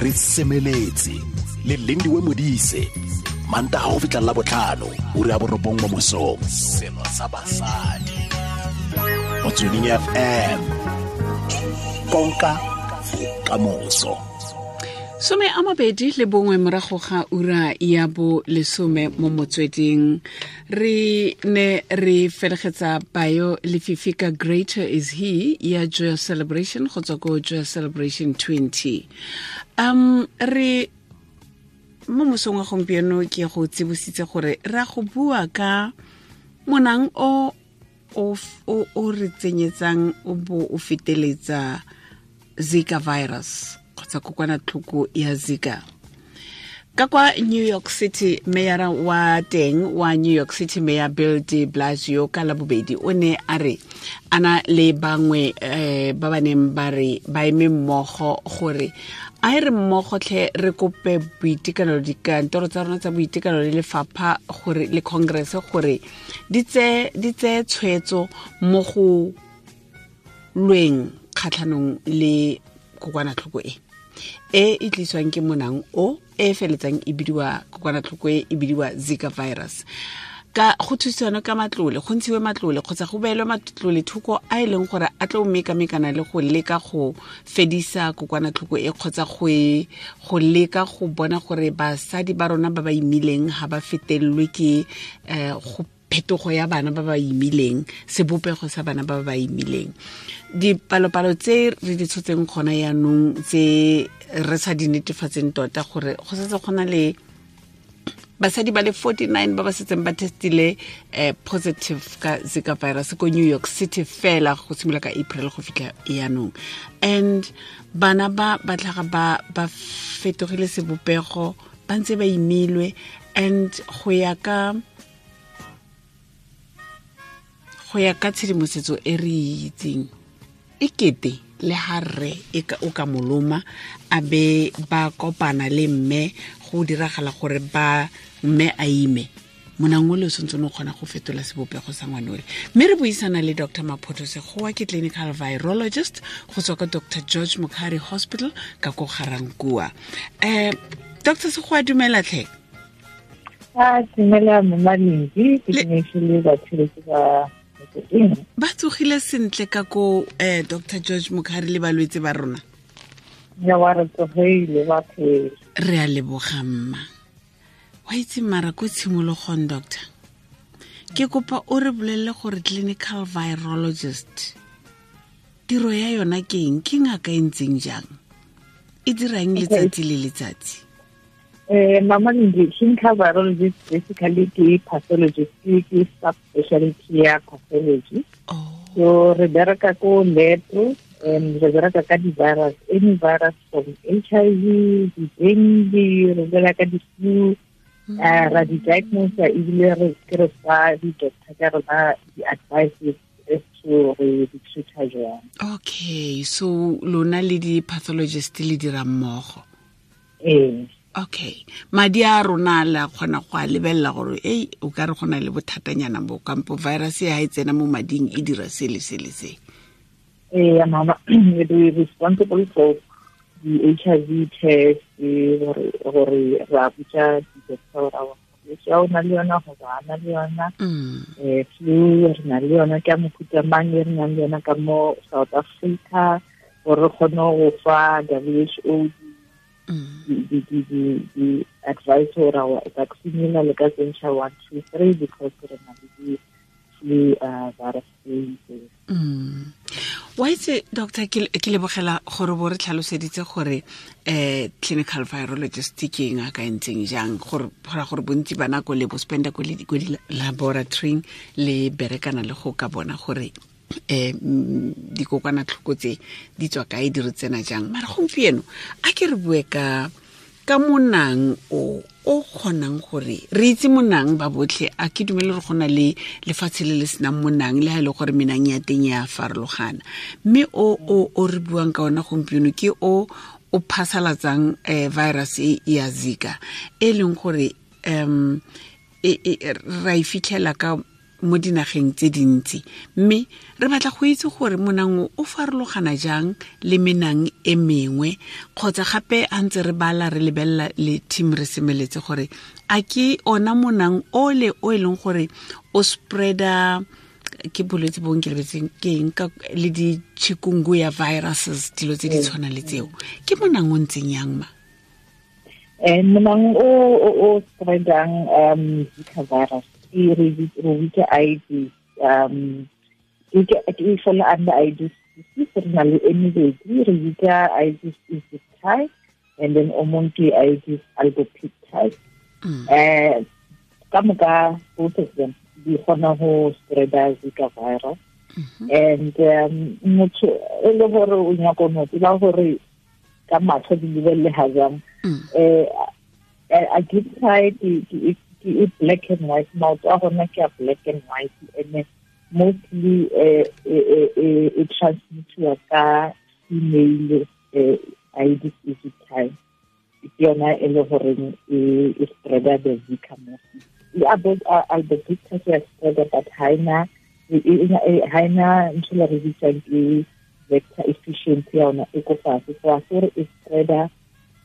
Re semeletse le Lindiwe Modise, Mantaga go fitlha la botlhano, ura ya 9 mo mosong. Selo sa basadi. Motsweding FM. Konka bokamoso. 21 morago ga ura ya 10 mo Motsweding. Re ne re felegetsa Bayo Lefifi ka Greater Is He ya Joyous Celebration go tswa ko Joyous Celebration 20. Re mo mosong wa gompieno ke go tsibositse gore ra go bua ka monang o o re tsenyetsang o bo o feteletsa Zika virus kgotsa kokwanatlhoko ya Zika. Ka kwa New York City, mayor wa teng wa New York City, Mayor Bill de Blasio, ka Labobedi o ne a re ana le bangwe ba ba neng ba re ba eme mmogo gore a e re mmogo tlhe re kope boitekanelo, dikantoro tsa rona tsa boitekanelo le lefapha gore le Congress gore di tseye tshwetso mo go lweng kgatlhanong le kokwanatlhoko e e tliswang ke monang o e feletsang e bidiwa kokwanatlhoko e e bidiwa Zika virus. Ka go thusana ka matlole, go ntshiwe matlole kgotsa go beelwe matlole thoko a e leng gore a tlo mekamekana le go leka go fedisa kokwanatlhoko e kgotsa go leka go bona gore basadi ba rona ba ba imileng ga ba fetelelwe ke go phetogo ya bana ba ba imileng, sebopego sa bana ba ba imileng. Dipalopalo tse re di tshotseng gona yaanong tse re sa di netefatseng tota gore go setse go na le basadi ba le 49 ba ba setseng ba testile positive ka Zika virus ko New York City fela go simolola ka April go fitlha yaanong. And bana ba ba tlhaga ba fetogile sebopego, ba ntse ba imilwe, and go ya ka tshedimosetso e re itseng e kete le ha rre o ka moloma a be ba kopana le mme go diragala gore ba mme a ime, monang o le o santse o kgona go fetola sebopego sa ngwana ole. Mme re buisana le Dr. Maphoto Segooa, ke clinical virologist go tswa ka Dr. George Mukhari Hospital ka ko Garankuwa. Dr. Segooa, dumela tlhe. Dumela Mama Lindy, ke dumedise batho ba ba tsogile sentle ka ko Dr. George Mukhari le balwetse ba rona. Ya wa re tsogile ba phela. Re a leboga mma. Wa itse mara ko tshimologong doctor, ke kopa o re bolelle gore clinical virologist tiro ya yona ke eng, ke ngaka e ntseng jang, e dirang letsatsi le letsatsi? Mama Lindy, clinical virologist basically ke pathologist, ke subspecialty ya pathology. So re bereka ko lab and re bereka ka di-virus, any virus from HIV, di-dengue, re bereka ka di-flu, ra di-diagnose ebile re ke re fa di-doctor ka rona di-advices as to re di treat-a jwang. Okay, so lona le di-pathologist le dira mmogo? Ee. Okay, madi a rona la kgona go a lebelela gore ei o ka re gona le bothatanyana bo kampo virus e ha e tsena mo mading e dira se le se le se. Ee, mama, we responsible for the HIV test, gore ra botsa di-doctor gore a o na le yona goba a na le yona. Flu re na le yona ka mofuta mang e re nang le yona ka mo South Africa, gore re kgone go fa WHO the advice or our vaccine le ka tsentšha 1 2 3 because re na le di-flu virus. Wa itse doctor, ke lebogela gore bo re tlhaloseditse gore clinical virologist ke eng a ka ntseng jang, gore gore bontsi ba nako le bo spenda ko di-laboratory le berekana le go ka bona gore dikokwanatlhoko tse di tswa kae, di re tsena jang. Mara gompieno a ke re bue ka monang o kgonang gore re itse monang ba botlhe. A ke dumele re gona le lefatshe le le senang monang, le ha e le gore menang ya teng ya farologana, mme o re buang ka ona gompieno ke o phasalatsang virus e ya Zika, e leng gore ra e fitlhela ka mo dinageng tse dintsi. Mme re batla go itse gore monang o farologana jang le menang e mengwe, kgotsa gape a ntse re bala re lebelela le team re semeletse gore a ke ona monang o le o e leng gore o spreada ke bolwetse bo nke lebetseng ke eng ka le di-chikungunya viruses, dilo tse di tshwana le tseo. Ke monang o ntseng yang ma? Monang o spreadang Zika virus e re bitsa Aedes, e fola under Aedes species. Re na le e mebedi, re bitsa Aedes aegypti and then o mongwe ke Aedes albopictus. Ka moka both of them di kgona go spreada Zika virus. And motho e le gore o nyaka no tseba gore ka matlho di lebelele ga jang, aegypti ke black and white, maoto a gona ke a black and white, and mostly e transmitiwa ka female Aedes aegypti. Ke yona e le goreng e spreada the Zika mostly. Le albopictus ya spreada, but ha ena ntho le re bitsang ke vector efficiency ya yona e ko fatshe, so a se gore e spreada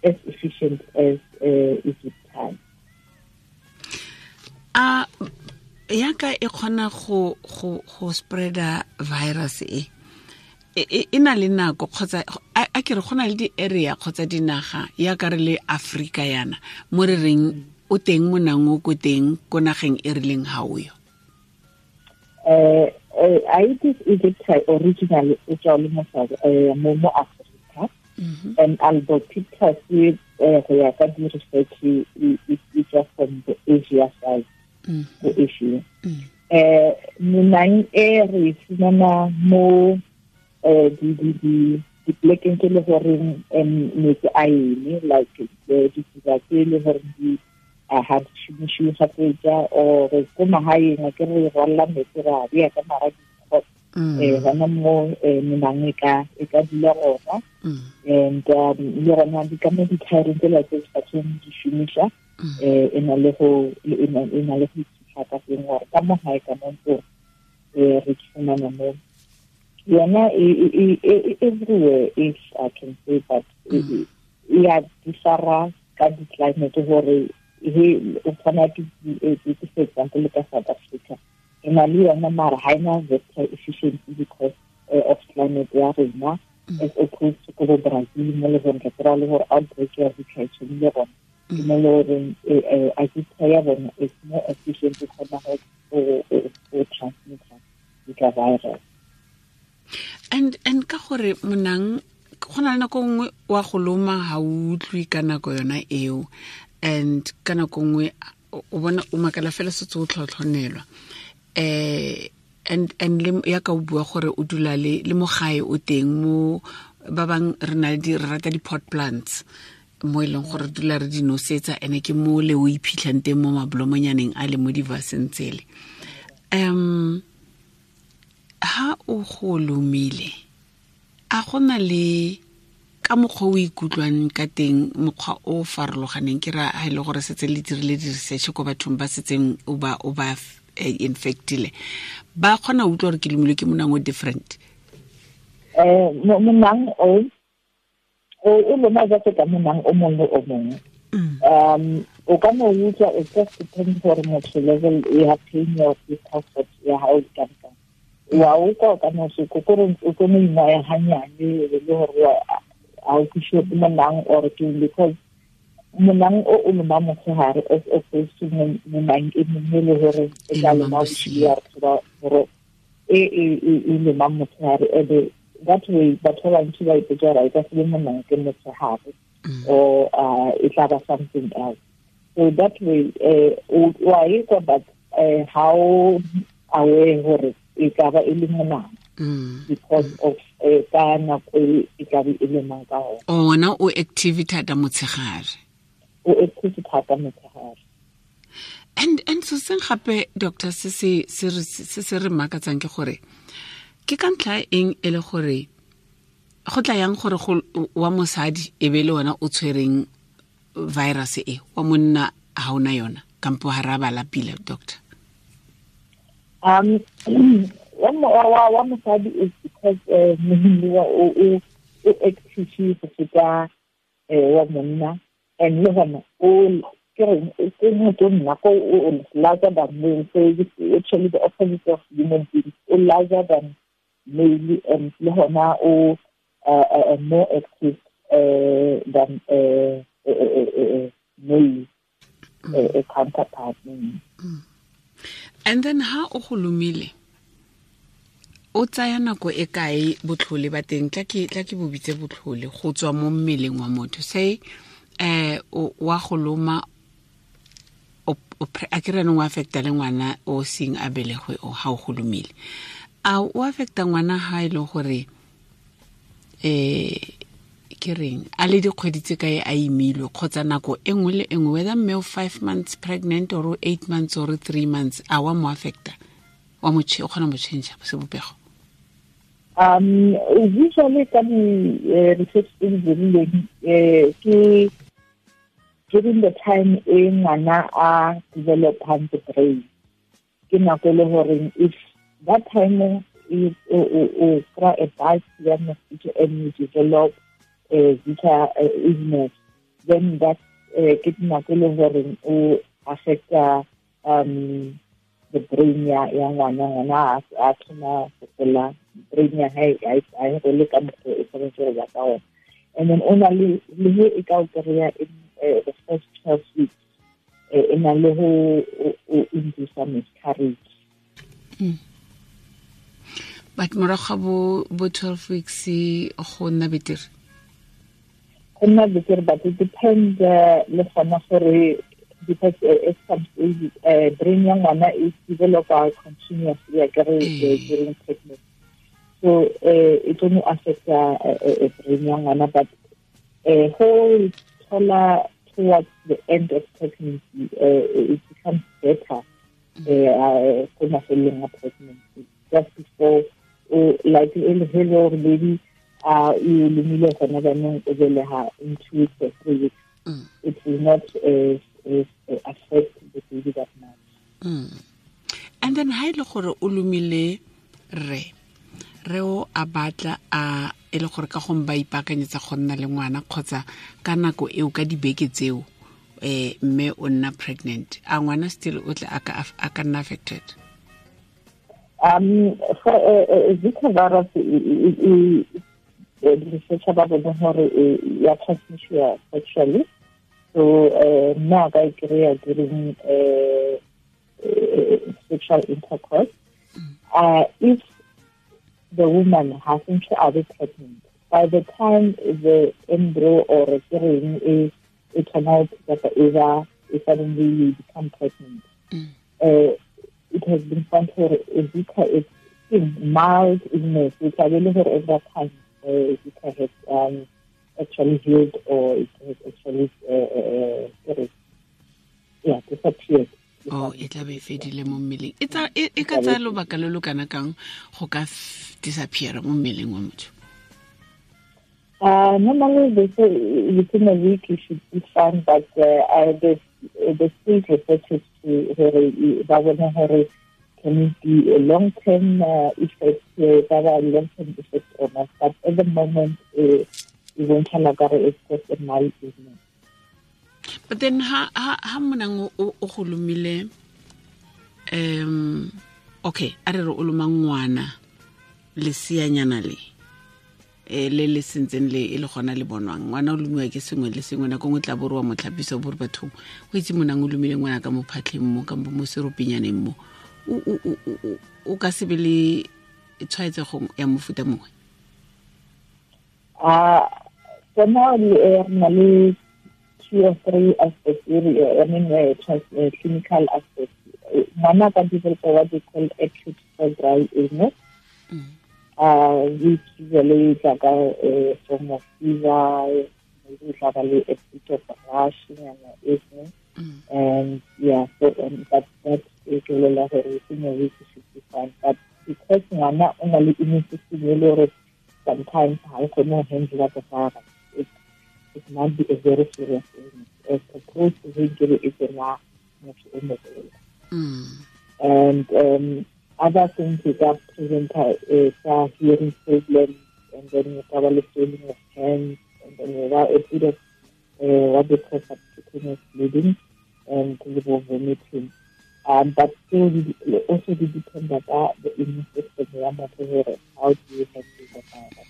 as efficient as aegypti. A yaka e kgona go spreada virus e e na le nako, kgotsa a ke re go na le di-area kgotsa dinaga ya ka re le Afrika yana mo re reng o teng monang o ko teng ko nageng e rileng ga o yo? Aedes aegypti originally e tswa le mo Africa, and albopictus go ya ka di-research e tswa from the Asia side, go Asia. Menang e re fumana mo dipolekeng tse le goreng metsi a eme, like ditsela tse le goreng di ha di šomišiwe kgafetsa, or ko magaeng a ke re rwalla metsi ra bea ka mara dikgo, gona mo menang e ka dula gona. And le gona di ka mo dithaereng tsela tse sa tshweng di šomiša, e na le go iphitlha ka teng gore ka mo gae ka mo ntlong re fumana mo yona everywhere, if I can say, but e ya differa ka di-climate gore he o kgona ke for example ka South Africa re na le yona, mara ha ena vector efficiency because of climate ya rena, as opposed to ko Brazil mo le gore re kry-a le gore outbreak ya Zika e tshwanile gona, ke mo le goreng aegypti ya bona is more efficient e kgona go transmit-a Zika virus. And ka gore monang go na le nako nngwe wa go loma ga o utlwe ka nako yona eo, and ka nako nngwe o bona o makala fela setse o tlhotlhonelwa. And le ya ka o bua gore o dula le mo gae o teng mo ba bang re na le re rata di-pot plants mo e leng gore re dula re di nosetsa, ene ke mo le o iphitlhang teng mo mabolomonyane a le mo divaseng tsele. Ha o go lomile, a gona le ka mokgwa o ikutlwang ka teng, mokgwa o farologaneng? Ke ra ha e le gore setse le dirile di-research ko bathong ba setseng o ba infectile, ba kgona go utlwa gore ke lomilwe ke monang o different? Monang o loma jaaka ka monang o mongwe le o mongwe. O ka no utlwa, it just depends gore motho level ya pain or discomfort ya hao e ka kang. Wa utlwa o ka no se kore o tlo mo ingwaya hanyane le gore ha o kwishe ke monang or ke, because monang o loma motshehare as opposed to monang e mongwe le gore e tla loma bosigo, ya re tseba gore e loma motshehare. And that way batho ba bantsi ba ipotsa gore e ka se be monang ke motshehare or e tla ba something else. So that way wa e kwa, but how aware gore e ka ba e le monang because of ka nako e tla be e lemang ka gona. Ona o active thata motshegare. O active thata motshegare. And so seng gape doctor se se re makatsang ke gore ke ka ntlha eng e le gore go tla yang gore go wa mosadi e be le wena o tshwereng virus e, wa monna ha ona yona, kampo ha ra bala pila doctor? Wa mosadi is because mohimmi wa o active go feta wa monna, and le gona o ke reng ke motho nna ko o larger than male, so it's actually the opposite of human beings. O larger than male, and le gona o more active than male counterpart. And then ha o go lomile, o tsaya nako e kae botlhole ba teng? Tla ke bo bitse botlhole go tswa mo mmeleng wa motho. Say wa go loma, a ke re wa affecta le ngwana o seng a belegwe o ha o go lomile. A o affecta ngwana ha e le gore ke reng a le dikgwedi tse kae a imilwe, kgotsa nako e nngwe le e nngwe, whether mme o 5 months pregnant or 8 months or 3 months, a wa mo affecta, wa mo o kgona mo change sebopego? Usually ka di research tse di dirilweng, ke during the time e ngwana a developang the brain, ke nako e le goreng if that time o kry a bite ya mosquito and you develop Zika illness, then that ke nako e le goreng o affecta the brain ya ngwana a thoma go gola, brain ya hae a e gole ka mokgwa e tshwanetse go ba ka ona. And then o na le he e ka o kry-a in the first 12 weeks, e na le go induce miscarriage. But morago ga bo 12 weeks go nna betere? Go nna betere, but it depends le gona gore, because at some stage brain ya ngwana is develop continuously during pregnancy, so it only affects brain ya ngwana, but go thola towards the end of pregnancy it becomes better ko mafelong a pregnancy, just before like e le gore baby e lomile gona jaanong o belega in 2 weeks or 3 weeks, it will not affect the baby that much. And then ha ile gore o lomile re o a batla a e le gore ka gong ba ipaakanyetsa go nna le ngwana, kgotsa ka nako eo ka dibeke tseo mme o nna pregnant, a ngwana still o tle a ka nna affected? For Zika virus, research ba bone gore ya transmission sexually, so nna ka e kry-a during sexual intercourse. If the woman hasn't to be pregnant, by the time the embryo or the it turns out that either suddenly you become pregnant, it has been found for Zika is mild illness, which I really heard every time Zika has actually healed, or it has actually disappeared. Oh, e tla be e fedile mo mmeleng. E ka tsaya lobaka lo lo kana kang go ka disappear mo mmeleng wa motho? Normally they say within a week you should be fine, but the state researchers to ba bona gore can it be a long-term effect, long-term effect or not. But at the moment, e bontšha gore it's just a mild illness. But then ha monang o go lomile, okay, a re re o loma ngwana leseanyana le le le sentseng le e le gona le bonwang, ngwana o lomiwa ke sengwe le sengwe, nako nngwe tla bo re wa mo tlhapisa, bo re bathong o itse monang o lomile ngwana ka mo phatlheng mo, kampo mo seropinyaneng mo, o ka se be le tshwaetsego ya mofuta mongwe? For now re na le 2 or 3 aspects, clinical aspects. Ngwana ka develop what they call acute febrile illness, which usually is like a form of fever, maybe like a bit of rash and illness, and yeah, so but that is within a week should be fine. But because ngwana o na le immune system, sometimes ha e kgone go handle the virus, it might be a very serious illness as opposed to injury is a motho o mogolo. And Other things you ka presenta ka hearing problems, and then you ka ba le swelling of hands, and then you have a bit of what they call subcutaneous bleeding and vomiting. But still, also depends on the immune system. How do you handle the virus?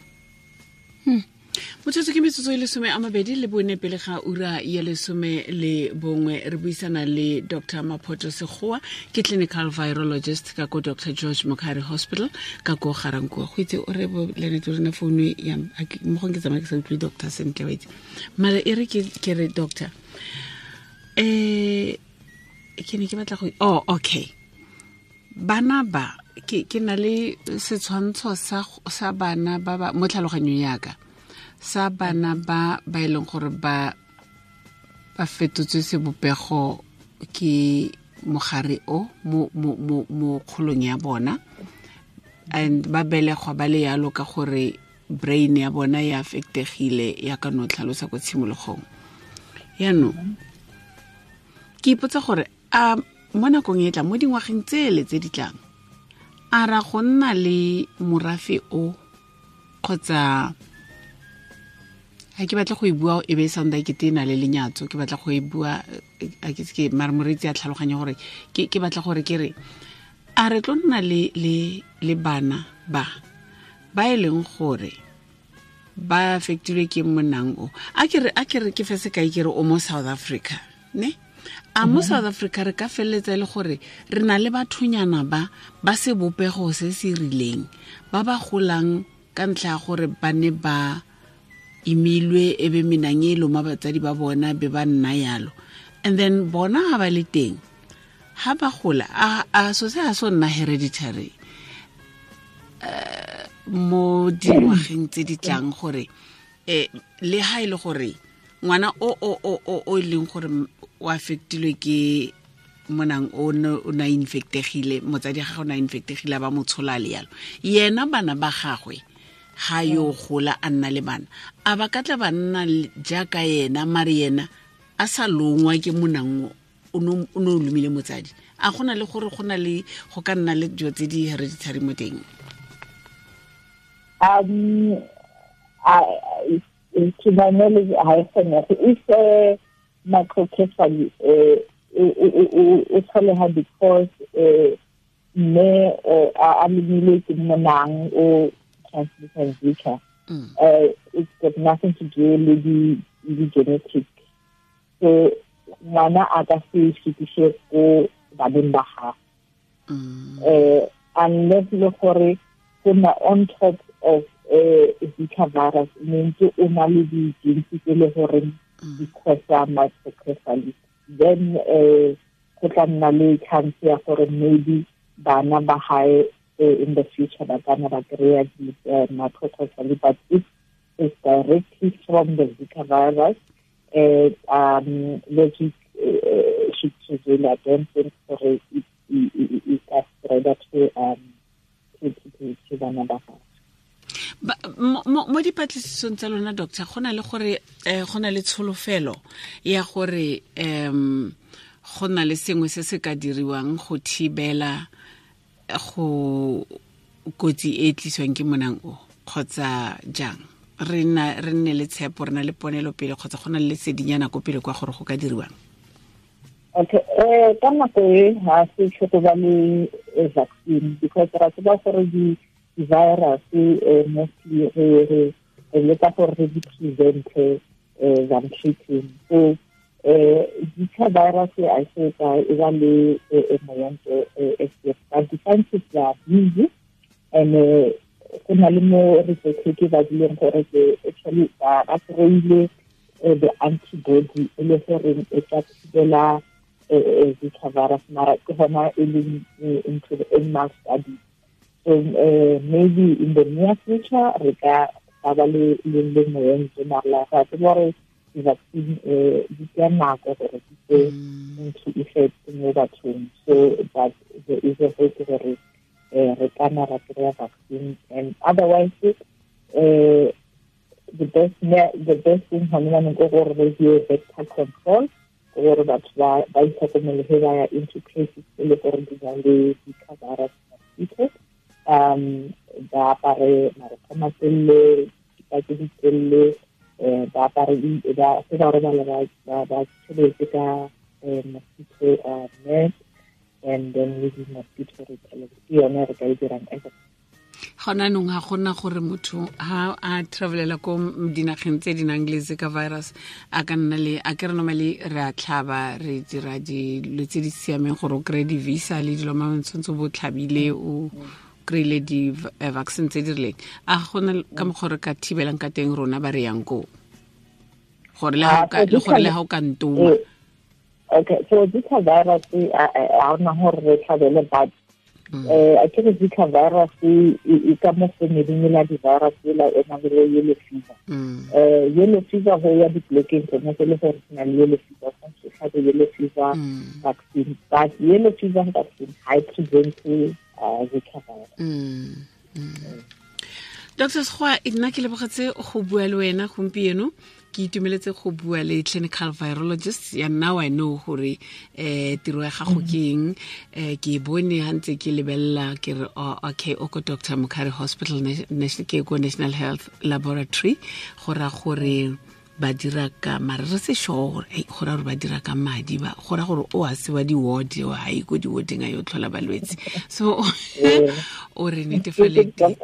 Motsotso ke metsotso e 24 pele ga ura ya 11 re buisana le Dr. Maphoto Segooa, ke clinical virologist ka ko Dr. George Mukhari Hospital ka ko Garankuwa. Go itse o re bo Lenete o rena founu ya mo gong ke tsamaya ke sa utlwe doctor sentle wa itse. Mara e re ke re doctor, ke ne ke batla go, oh okay, bana ba ke na le setshwantsho sa bana ba ba mo tlhaloganyong yaka, sa bana ba ba e leng gore ba fetotswe sebopego ke mogare o mo kgolong ya bona, and ba belegwa ba le yalo ka gore brain ya bona ya affectegile ya ka no tlhalosa ko tshimologong. Yaanong ke ipotsa gore a mo nakong e tlang, mo dingwageng tsele tse di tlang, a ra go nna le morafe o, kgotsa ha ke batla go e bua e be e sounda ke tena le lenyatso, ke batla go e bua a ke se mare moreetsi a tlhaloganya gore ke batla gore ke re a re tlo nna le bana ba ba e leng gore ba affectilwe ke monang o. A ke re ke fe sekai ke re o mo South Africa, ne? A mo South Africa re ka feleletsa e le gore re na le bathonyana ba ba sebopego se se rileng ba ba golang ka ntlha ya gore ba ne ba imilwe e be menang e loma batsadi ba bona be ba nna yalo, and then bona ha ba le teng ha ba gola a so se ha so nna hereditary mo dingwageng tse di tlang, gore le ha e le gore ngwana o e leng gore o affectilwe ke monang o na infectegile, motsadi ga gagwe o na infectegile ba mo tshola le yalo, yena bana ba gagwe ha yo gola a nna le bana a ba ka tla ba nna jaaka yena, mare yena a sa longwa ke monang o no lomile motsadi. A gona le gore go na le go ka nna le dilo tse di hereditary mo teng? To my knowledge, I think if microcephaly o tlholega because mme a lomilwe ke monang o transmission Zika, it's got nothing to do with the genetics. So ngwana a ka se fetise ko baneng ba gagwe, unless le gore go na on top of Zika virus ntse o na le di-genes tse le gore di cause microcephaly, then go tla nna le chance ya gore maybe bana ba hae in the future ba ka nna ba kry-a di-microcephaly. But if it's directly from the Zika virus, logic should prevail. I don't think gore it ka spread to bana ba gagwe. Mo dipatlisisong tsa lona doctor, go na le gore go na le tsholofelo ya gore go na le sengwe se se ka diriwang go thibela go kotsi e tliswang ke monang o, kgotsa jang? Re nne le tshepo, re na le ponelo pele, kgotsa go na le lesedinyana ko pele kwa gore go ka diriwang? Okay, ka nako e ha se tlhoko ba le vaccine, because ra tseba gore di-virus mostly re leka gore re di prevente than treating. So Zika virus I say e ba le moento but the scientists are busy, and go na le mo research ke ba dileng gore ke actually ba kry-ile the antibody e le goreng e ka thibela Zika virus, mara ke gona e leng into the animal study. So maybe in the near future re ka ba le moento, mara ga tsebe gore di-vaccine di tsaya nako gore di tse into effect mo bathong. So but there is a hope gore re ka nna ra kry-a vaccine, and otherwise the best thing gone jaanong ke gore re die vector control, gore batho ba itlhokomele ge ba ya into places e le gore di na le Zika virus. mosquitoes. Ba apare marokgwe a matelele, dikipa tse di telele, ba apare ba se ba robala ba tshebetse ka mosquito net, and then le di-mosquito repellent. Ke yone re ka e dirang as a Gona nong ga gona gore motho ha a travelela ko dinageng tse di nang le Zika virus a ka nna le a ke re normally re a tlhaba, re dira dilo tse di siameng gore o kry-e di-visa le dilo ma tshwanetse bo tlhabile, o kry-ile di-vaccine tse di rileng. A gona ka mokgwa re ka thibelang ka teng rona ba re yang koo gore le ha o ka ntoma? Okay, so Zika virus ga ona gore re tlhabele, but a ke re Zika virus e ka mo familing la di-virus ela e nang le yellow fever. Yellow fever go ya dipolekeng tsone tse le gore se na le yellow fever, tshwanetse o tlhabe yellow fever vaccine, but yellow fever vaccine ga e prevente Zika virus. Dr. Sekgowa, nna ke lebogetse go bua le wena gompieno. Ke itumeletse go bua le clinical virologist ya. Now I know gore tiro ya gago ke eng. Ke bone ha ntse ke lebelela ke re, oh, okay, o ko Dr. Mukhari Hospital, ke ko National Health Laboratory, go ra gore ba dira ka mare re se sure gore go ra gore ba dira ka madi, ba go ra gore o a se wa di-ward, o ha ye ko di-warding a yo tlhola balwetse. So o re netefaleditse,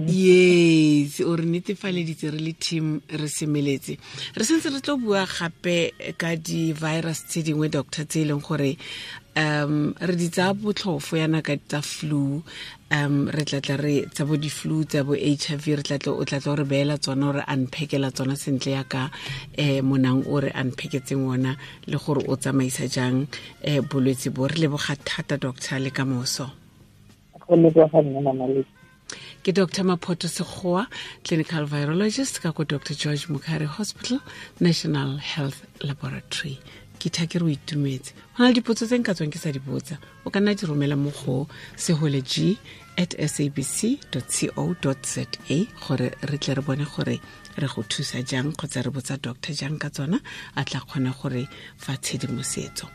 yes, o re netefaleditse re le team re semeletse. Re sentse re tlo bua gape ka di-virus tse dingwe, doctor, tse e leng gore re di tsaya botlhofo yana ka tsa flu. Re tlatla re tsa bo di-flu, tsa bo HIV, re tlatla o tlatla o re beela tsona, o re unpackela tsona sentle yaka monang o re unpacketseng ona, le gore o tsamaisa jang bolwetse bo. Re leboga thata, doctor, le ka moso. Go leboga nna, Mama. Ke Dr. Maphoto Sekgowa, clinical virologist ka ko Dr. George Mukhari Hospital, National Health Laboratory. Ke tha ke re o itumetse. Go na le dipotso tse nka tswang ke sa di botsa, o ka nna di romela mo go seholeg@sabc.co.za gore re tle re bone gore re go thusa jang kgotsa re botsa doctor jang ka tsona, a tla kgona gore fa tshedimosetso.